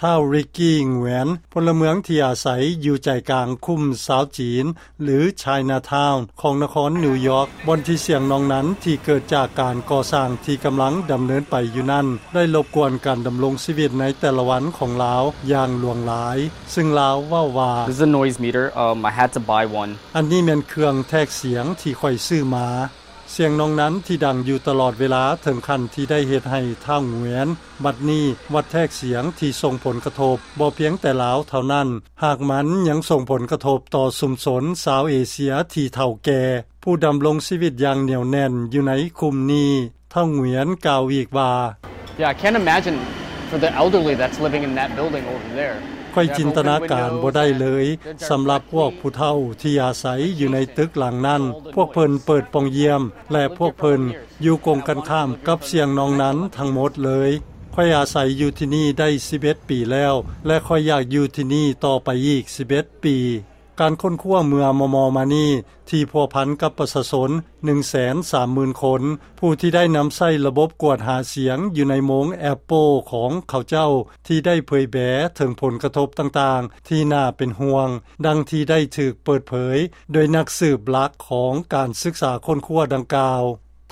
ທ້າວ ຣິກກີ້ ຫງວຽນ ພົນລະເມືອງທີ່ອາໄສຢູ່ໃຈກາງຄຸ້ມຊາວຈີນ ຫຼື Chinatown ຂອງນະຄອນນິວຢອກ ບ່ອນທີ່ສຽງນອງນັ້ນທີ່ເກີດຈາກການກໍ່ສ້າງທີ່ກຳລັງດຳເນີນໄປຢູ່ນັ້ນ ໄດ້ລົບກວນການດຳລົງຊີວິດໃນແຕ່ລະວັນຂອງລາວຢ່າງຫຼວງຫຼາຍ, ຊຶ່ງລາວເວົ້າວ່າ This is a noise meter. Um, I had to buy one. ອັນນີ້ແມ່ນເຄື່ອງແທກສຽງທີ່ຂ້ອຍຊື້ມາ. ສຽງນອງນັ້ນທີ່ດັງຢູ່ຕະຫຼອດເວລາເຖິງຂັ້ນທີ່ໄດ້ເຮັດໃຫ້ທ້າວ ຫງວຽນ ບັດນີ້ວັດແທກສຽງທີ່ສົ່ງຜົນກະທົບບໍ່ພຽງແຕ່ລາວເທົ່ານັ້ນ, ຫາກມັນຍັງສົ່ງຜົນກະທົບຕໍ່ຊຸມຊົນຊາວເອເຊຍທີ່ເຖົ້າແກ່ ຜູ້ດຳລົງຊີວິດຢ່າງໜຽວແໜ້ນຢູ່ໃນຄຸ້ມນີ້. ທ້າວ ຫງວຽນ ກ່າວອີກວ່າ Yeah, I can't imagine for the elderly that's living in that building over there. ຂ້ອຍຈິນຕະນາການບໍ່ໄດ້ເລີຍ ສຳລັບພວກຜູ້ເຖົ້າທີ່ອາໄສຢູ່ໃນຕຶກຫຼັງນັ້ນ, ພວກເພິ່ນເປີດປ່ອງຢ້ຽມ ແລະ ພວກເພິ່ນຢູ່ກົງກັນຂ້າມກັບສຽງນອງນັ້ນທັງໝົດເລີຍ. ຂ້ອຍອາໄສຢູ່ທີ່ນີ້ໄດ້ສິບເອັດປີແລ້ວ ແລະ ຂ້ອຍຢາກຢູ່ທີ່ນີ້ຕໍ່ໄປອີກສິບເອັດປີ. ການຄົ້ນຄວ້າເມື່ອມໍ່ໆມານີ້ ທີ່ພົວພັນກັບປະຊາຊົນໜຶ່ງແສນສາມໝື່ນຄົນ ຜູ້ທີ່ໄດ້ນຳໃຊ້ລະບົບກວດຫາສຽງຢູ່ໃນໂມງ Apple ຂອງເຂົາເຈົ້າ ທີ່ໄດ້ເຜີຍແຜ່ເຖິງຜົນກະທົບຕ່າງໆທີ່ໜ້າເປັນຫ່ວງ, ດັ່ງທີ່ໄດ້ຖືກເປີດເຜີຍໂດຍນັກສືບຫຼັກຂອງການສຶກສາຄົ້ນຄວ້າດັ່ງກ່າວ.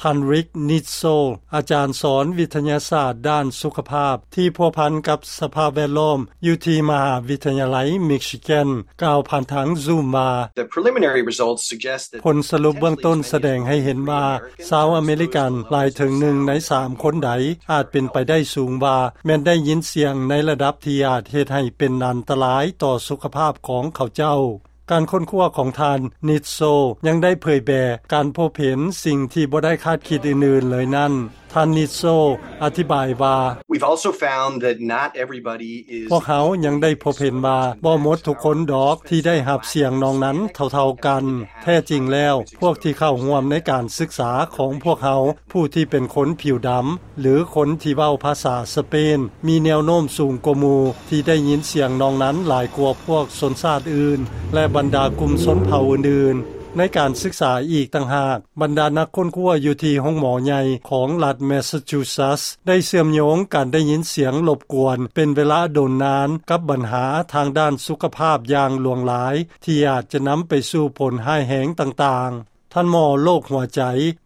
ທ່ານ Rick Nitzel ອາຈານສອນວິທະຍາສາດດ້ານສຸຂະພາບທີ່ພົວພັນກັບສະພາບແວດລ້ອມຢູ່ທີ່ມະຫາວິທະຍາໄລ Michigan ກ່າວຜ່ານທາງ Zoom ວ່າ The preliminary results suggest that ຜົນສະຫຼຸບເບື້ອງຕົ້ນສະແດງໃຫ້ເຫັນວ່າ ຊາວອາເມລິກັນຫຼາຍເຖິງໜຶ່ງໃນສາມຄົນໃດ ອາດເປັນໄປໄດ້ສູງວ່າ ແມ່ນໄດ້ຍິນສຽງໃນລະດັບທີ່ອາດເຮັດໃຫ້ເປັນອັນຕະລາຍຕໍ່ສຸຂະພາບຂອງເຂົາເຈົ້າ. ການຄົ້ນຄວ້າຂອງທ່ານ Nitzel ຍັງໄດ້ເຜີຍແຜ່ການພົບເຫັນສິ່ງທີ່ບໍ່ໄດ້ຄາດຄິດອື່ນໆເລີຍນັ້ນ. ທ່ານ Nitzel ອະທິບາຍວ່າ We've also found that not everybody is ພວກເຮົາຍັງໄດ້ພົບເຫັນວ່າບໍ່ໝົດທຸກຄົນດອກທີ່ໄດ້ຮັບສຽງນອງນັ້ນເທົ່າໆກັນ. ແທ້ຈິງແລ້ວ ພວກທີ່ເຂົ້າຮ່ວມໃນການສຶກສາຂອງພວກເຮົາ ຜູ້ທີ່ເປັນຄົນຜິວດຳ ຫຼື ຄົນທີ່ເວົ້າພາສາສະເປນ ມີແນວໂນ້ມສູງກວ່າໝູ່ທີ່ໄດ້ຍິນສຽງນອງນັ້ນຫຼາຍກວ່າພວກຊົນຊາດອື່ນ ແລະ ບັນດາກຸ່ມຊົນເຜົ່າອື່ນໆ. ໃນການສຶກສາອີກຕ່າງຫາກ, ບັນດານັກຄົ້ນຄວ້າຢູ່ທີ່ໂຮງໝໍໃຫຍ່ຂອງລັດ Massachusetts ໄດ້ເຊື່ອມໂຍງການໄດ້ຍິນສຽງລົບກວນເປັນເວລາດົນນານກັບບັນຫາທາງດ້ານສຸຂະພາບຢ່າງຫຼວງຫຼາຍ ທີ່ອາດຈະນຳໄປສູ່ຜົນຮ້າຍແຮງຕ່າງໆ. ທ່ານໝໍໂລກຫົວໃຈ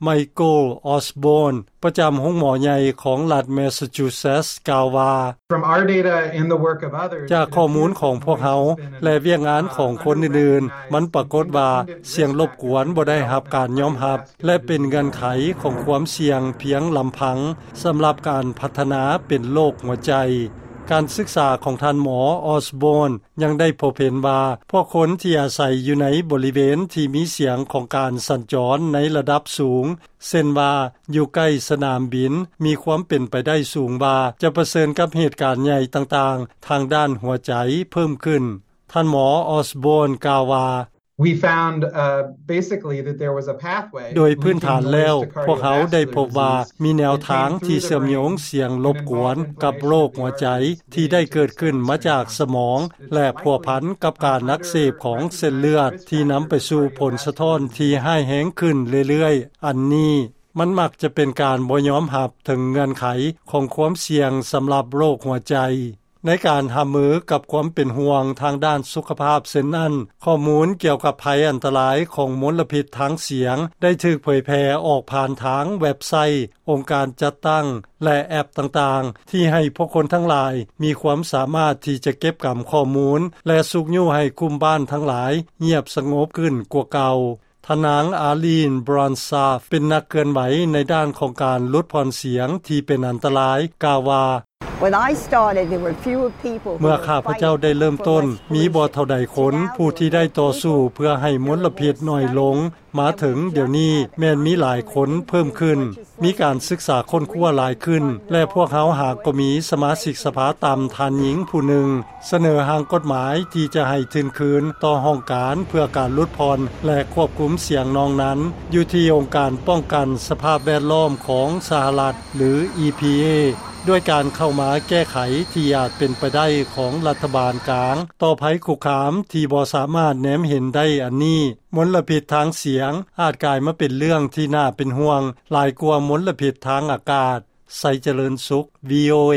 Michael Osborne ປະຈຳໂຮງໝໍໃຫຍ່ຂອງລັດ Massachusetts ກ່າວວ່າ From our data and the work of others, ຈາກຂໍ້ມູນຂອງພວກເຮົາ ແລະ ວຽກງານຂອງຄົນອື່ນໆ, ມັນປາກົດວ່າສຽງລົບກວນບໍ່ໄດ້ຮັບການຍອມຮັບ ແລະ ເປັນເງື່ອນໄຂຂອງຄວາມສ່ຽງພຽງລຳພັງສຳລັບການພັດທະນາເປັນໂລກຫົວໃຈ. ການສຶກສາຂອງທ່ານໝໍ Osborne ຍັງໄດ້ພົບເຫັນວ່າ ພວກຄົນທີ່ອາໄສຢູ່ໃນບໍລິເວນທີ່ມີສຽງຂອງການສັນຈອນໃນລະດັບສູງ ເຊັ່ນວ່າ ຢູ່ໃກ້ສະໜາມບິນ, ມີຄວາມເປັນໄປໄດ້ສູງວ່າຈະປະເຊີນກັບເຫດການໃຫຍ່ຕ່າງໆທາງດ້ານຫົວໃຈເພີ່ມຂຶ້ນ. ທ່ານໝໍ Osborne ກ່າວວ່າ We found, uh, basically that there was a pathway ໂດຍພື້ນຖານແລ້ວ ພວກເຮົາໄດ້ພົບວ່າມີແນວທາງທີ່ເຊື່ອມໂຍງສຽງລົບກວນກັບໂລກຫົວໃຈ ທີ່ໄດ້ເກີດຂຶ້ນມາຈາກສະໝອງ ແລະ ພົວພັນກັບການອັກເສບຂອງເສັ້ນເລືອດ ທີ່ນຳໄປສູ່ຜົນສະທ້ອນທີ່ຮ້າຍແຮງຂຶ້ນເລື້ອຍໆ. ອັນນີ້ມັນມັກຈະເປັນການບໍ່ຍອມຮັບເຖິງເງື່ອນໄຂຂອງຄວາມສ່ຽງສຳລັບໂລກຫົວໃຈ. ໃນການຮັບມືກັບຄວາມເປັນຫ່ວງທາງດ້ານສຸຂະພາບເຊັ່ນນັ້ນ, ຂໍ້ມູນກ່ຽວກັບໄພອັນຕະລາຍຂອງມົນລະພິດທາງສຽງ ໄດ້ຖືກເຜີຍແຜ່ອອກຜ່ານທາງເວັບໄຊ, ອົງການຈັດຕັ້ງ ແລະ ແອັບຕ່າງໆ ທີ່ໃຫ້ພວກຄົນທັງຫຼາຍມີຄວາມສາມາດທີ່ຈະເກັບກຳຂໍ້ມູນ ແລະ ຊຸກຍູ້ໃຫ້ກຸ່ມບ້ານທັງຫຼາຍງຽບສະຫງົບຂຶ້ນກວ່າເກົ່າ. ທ່ານນາງ Arlene Bronstaff ເປັນນັກເຄື່ອນໄຫວໃນດ້ານຂອງການຫຼຸດຜ່ອນສຽງທີ່ເປັນອັນຕະລາຍ ກ່າວວ່າ When I started, there were fewer people who were fighting for less pollution. ເມື່ອຂ້າພະເຈົ້າໄດ້ເລີ່ມຕົ້ນ, ມີບໍ່ເທົ່າໃດຄົນຜູ້ທີ່ໄດ້ຕໍ່ສູ້ເພື່ອໃຫ້ມົນລະພິດໜ້ອຍລົງ. ມາເຖິງດຽວນີ້ແມ່ນມີຫຼາຍຄົນເພີ່ມຂຶ້ນ, ມີການສຶກສາຄົ້ນຄວ້າຫຼາຍຂຶ້ນ ແລະ ພວກເຮົາຫາກໍມີສະມາຊິກສະພາຕ່ຳທ່ານຍິງຜູ້ໜຶ່ງ ສະເໜີຮ່າງກົດໝາຍທີ່ຈະໃຫ້ທຶນຄືນຕໍ່ຫ້ອງການເພື່ອການຫຼຸດຜ່ອນ ແລະ ຄວບຄຸມສຽງນອງນັ້ນ ຢູ່ທີ່ອົງການປ້ອງກັນສະພາບແວດລ້ອມຂອງສະຫະລັດ ຫຼື ອີ ພີ ເອ ດ້ວຍການເຂົ້າມາແກ້ໄຂທີ່ອາດເປັນໄປໄດ້ຂອງລັດຖະບານກາງຕໍ່ໄພຄຸກຄາມທີ່ບໍ່ສາມາດແນມເຫັນໄດ້ອັນນີ້. ມົນລະພິດທາງສຽງອາດກາຍມາເປັນເລື່ອງທີ່ໜ້າເປັນຫ່ວງຫຼາຍກວ່າມົນລະພິດທາງອາກາດ. ໄຊຈະເລີນສຸກ ວີ ໂອ ເອ.